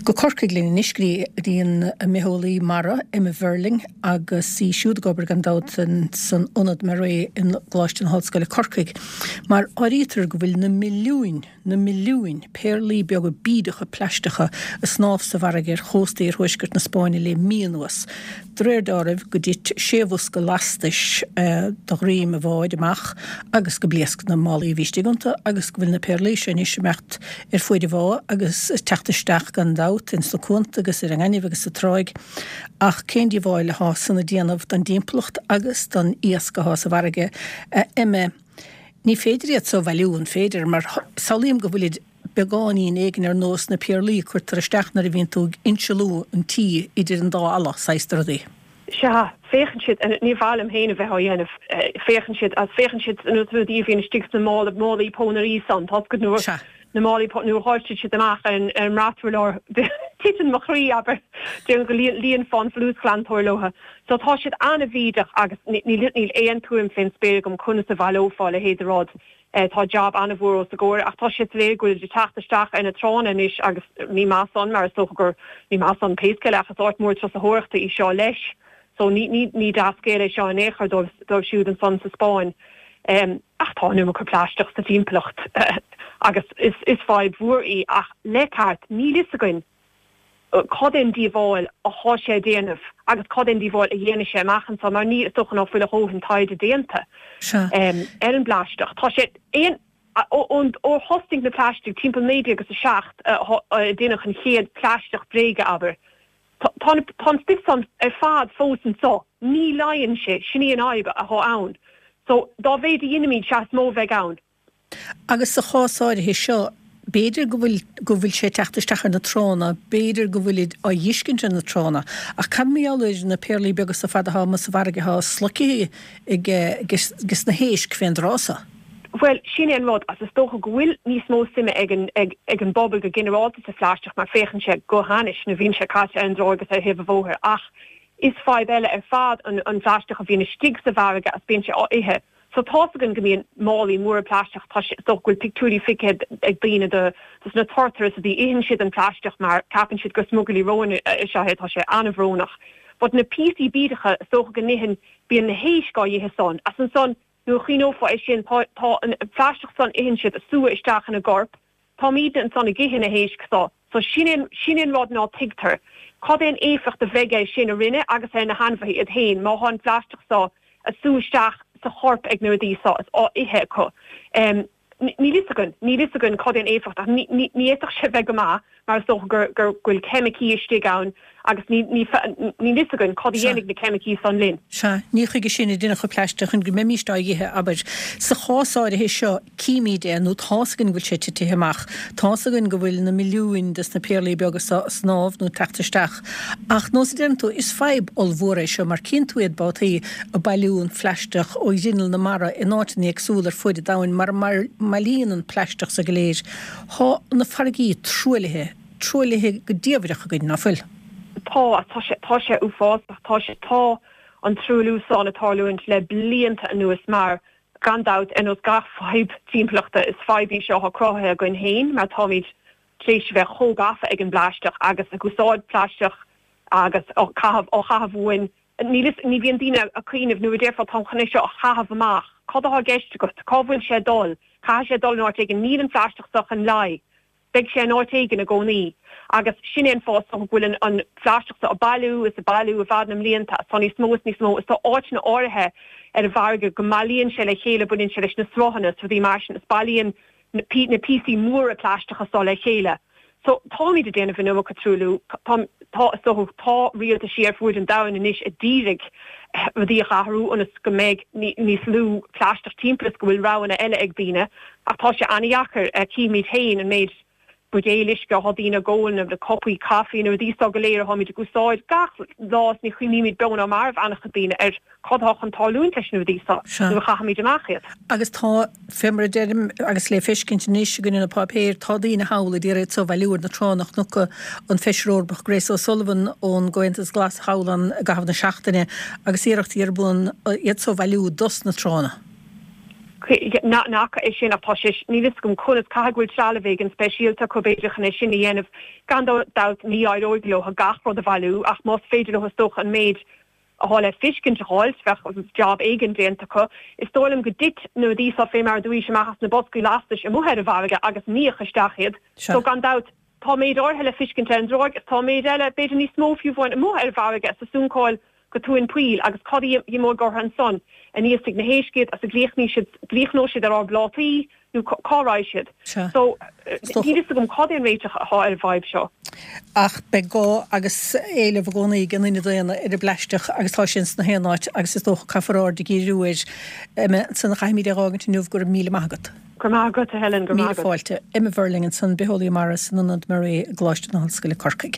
Go Corcaigh linn anois go dtí an mbitheolaí mara, Emma Verling, agus í siúd ag obair gan dabht san Ionad MaREI i gColáiste na hOllscoile Corcaigh. Mar áirítear go bhfuil na milliúin, na milliúin, péarlaí beaga bídeacha plaisteacha ag snámh sa bhfarraige ar chósta iarthuaisceart na Spáinne le mí anuas. De réir dealraimh go dtit sé bhosca lastais de dhroim an bháid amach agus go bpléasc na málaí a bhí istigh iontu agus go bhfuil na péarlaí seo anois ag imeacht ar fuaid an bhá agus ag teacht isteach gan dabht ins na cuanta agus ar an ngaineamh agus sa tráigh. Ach cén díobháil athá san ag déanamh don dtimpeallacht agus don iasc athá sa bhfarraige, a Emma? Ní féidir iad so a bhailiú, an féidir? Mar samhlaím go bhfuilid beagáinín éigin ar nós na péarlaí a cuirtear isteach nuair a bhíonn tú ag insealú an tí idir an dá fhalla, saghas de rudaí. Sea, féachann siad, ní mhaith liom féin a bheith á dhéanamh, féachann siad, agus féachann siad ar nós rudaí a bhíonn istigh sna mála, málaí pónairí san, tá 'fhios agat, nuair, Sea. na málaí pó, nuair a dháiltear siad amach ar an, ar an mbraturlár, titeann mo chroí, abair, déarfainn go líon, líonfá an folúsghlantóir leo. So tá siad an-bhídeach agus níl, níl aon tuairim fén spéir agam conas a bhaileofá a leithéid de rud. Tá jab an-mhór os a gcomhair ach tá sé soiléir go bhfuilid ag teacht isteach ar na tránna anois agus ní maith san mar is dócha gur, ní maith san pé scéal é ach is áit mhór turasóireachta í seo leis so ní, ní, ní dea-scéal é seo in aon chor dóibh, dóibh siúd ansan sa Spáinn. Ach tá an iomarca plaisteach sa timpeallacht agus is, is fadhb mhór í ach le ceart níl fhios againn cad é an díobháil athá sé a déanamh agus cad é an díobháil a dhéanfaidh sé amach anso mar ní, is dócha ná fuil a dhóthain taighde déanta ar an bplaisteach. Tá sé aon, ón, ó thosnaigh na plaistigh timpeall 19 agus 7 a déanadh an chéad plaisteach bréige, abair, tá, tá, tá an stuif san ar fad fós anso, ní leáigheann sé, sin í an fhadhb athá ann. So, dá mhéid a dheinimíd, sea is mó a bheidh ann. Agus sa chás áirithe seo, b'fhéidir go bhfuil, go bhfuil sé ag teacht isteach ar na tránna, b'fhéidir go bhfuilid á dh'fheiscint ar na tránna, ach cad mar gheall ar na péarlaí beaga so fad athá amuigh sa bhfarraige athá sloicthe ag, ages na héisc fén dtráth so? Bhuel, sin é an rud, agus is dócha go bhfuil níos mó suime ag an, ag, ag an bpobal go ginearálta sa phlaisteach mar féachann sé go hainnis nuair a bhíonn sé caite ar an dtráigh agus ar thaobh an bhóthair ach is fadhb eile ar fad an, an phlaisteach a bhíonn istigh sa bhfarraige agus bíonn sé á ithe. So tá's againn go mbíonn málaí móra plaisteach, tá sé, is dócha go bhfuil pictiúirí feicthe ag daoine de dos na turtair is rudaí, itheann siad an plaisteach mar ceapann siad gur smugairlí róin is ea é, tá sé an-bhrónach. But na píosaí bídeacha, is dócha go n-itheann, bíonn na héisc á dh'ithe san, as ansan nuair a chuimhneofá é sin, tá, tá an plaisteach san itheann siad, ag sú isteach ina gcorp, Táimídne ansan ag ithe na héisc so. So sin é, sin é an rud ná tuigtear. Cad é an éifeacht a bheidh air sin orainne agus ar na hainmhithe iad féin má thá an phlaisteach so a sú isteach sa chorp ag na rudaí so is á ithe acu. Níl fhios againn, níl fhios againn cad é an éifeacht ach ní, ní, ní fhéadfadh sé bheith go maith mar is dócha gur, gur, go bhfuil ceimicí istigh ann agus ní, ní, níl fhios againn cad a dhéanfaidh na ceimicí san linn. Sea, ní chuige sin a deineadh an plaisteach, chun go mbeimíst á dh'ithe, abair. Sa chás áirithe seo, címíd é, nó tá's againn go bhfuil sé titithe amach, tá's againn go bhfuil na milliúin des na péarlaí beaga so ag snámh nó ag teacht isteach. Ach, nós a deireann tú, is fadhb ollmhór é seo, mar cíonn tú iad babhtaí ag bailiú an phlaisteach ó ghrinneall na mara in áiteanna éagsúla ar fuaid an domhain mar a mbailíonn an plaisteach so go léir. Thá na farraigí truaillithe, truaillithe go diamhaireach againn, ná fuil? Tá, tá sé, tá sé uafásach, tá sé, tá an truailliú san ag tarlúint le blianta anuas mar Gan dabht, ar nós gach fadhb timpeallachta, is fadhb í seo atá cruthaithe againn féin mar táimid tar éis a bheith chomh gafa ag an bplaisteach agus ag úsáid plaisteach agus á caitheamh, á chaitheamh uainn. Níl fhios, ní bhíonn daoine ag cuimhneamh nuair a déarfá táim chun é seo a chaitheamh amach, cad atá i gceist agat? Cá bhfuil sé ag dul? Caithfidh sé dul in áit éigin. Níl an phlaisteach seo chun leá. Beidh sé in áit éigin i gcónaí. Agus sin é an fáth is dócha go bhfuil an phlaisteach seo ag bailiú is ag bailiú i bhfad na mblianta agus tá níos mó is níos mó is tá áiteanna áirithe ar an bhfarraige go mbailíonn sé le chéile, baineann sé leis na sruthanna is rudaí mar sin is bailíonn na píosaí móra plaisteacha seo le chéile. So táimid ag déanamh an iomarca truailliú. Tá, tá, is dócha, tá rialtaisí ar fuaid an domhain anois a d'iarraidh rudaí a athrú ionas go mbeidh níos lú plaisteach timpeall is go bhfuil roghanna eile ag daoine. Ach tá sé an-dheacair. Címid féin an méid buidéil uisce atá daoine ag ól, na cupaí caife, na rudaí seo go léir atáimid ag úsáid gach lá is ní chuimhnímid beo ná marbh an-chuid daoine ar cad atá chun tarlúint leis na rudaí seo nuair a chaithimid amach iad. Agus tá, fé mar a deirim, agus le feiscint anois againn ar na páipéir, tá daoine thall a d'iarraidh iad so a bhailiú ar na tránna. Chonac an Feisire Eorpach Grace O'Sullivan ón gComhaontas Glas thall ann i gcaitheamh na seachtaine agus iarrachtaí ar bun iad so a bhailiú dos na tránna. N'fheaca é sin ach tá sé, níl fhios agam conas, caithfidh go bhfuil trealamh éigin speisialta acu b'fhéidir chun é sin a dhéanamh. Gan dabht ní éireoidh leo gach rud a bhailiú ach más féidir leo is dócha an méid atá le fiscint a dh'fháilt, bheadh jab éigin déanta acu. Is dóigh liom go dtit na rudaí seo fé mar a dúraís amach as na boscaí lastais amuigh ar an bhfarraige agus níodh isteach iad. So gan dabht tá méid áirithe le fiscint ar an dtráigh is tá méid eile, b'fhéidir níos mó fiú amháin, amuigh ar an bhfarraige is ag suncáil go tóin poill agus cad a imeoidh orthu ansan? An íosfaidh na héisc iad agus an gcríochnóidh siad ar ár bplátaí nó cá raghaidh siad? So, níl fhios agam cad é an réiteach atá ar an bhfadhb seo. Ach beidh gá agus éileamh i gcónaí ag an duine daonna ar an bplaisteach agus tá sé ins na haon áit agus is dócha caithfear aird a dhíriú air. Emma, ansan caithfimid é a dh'fhágaint inniu, go raibh míle maith agat. Go raibh maith agat, a Helen, go raibh maith agat. Míle fáilte. Emma Verling ansan, bitheolaí mara san Ionad MARE i gColáiste na hOllscoile Corcaigh.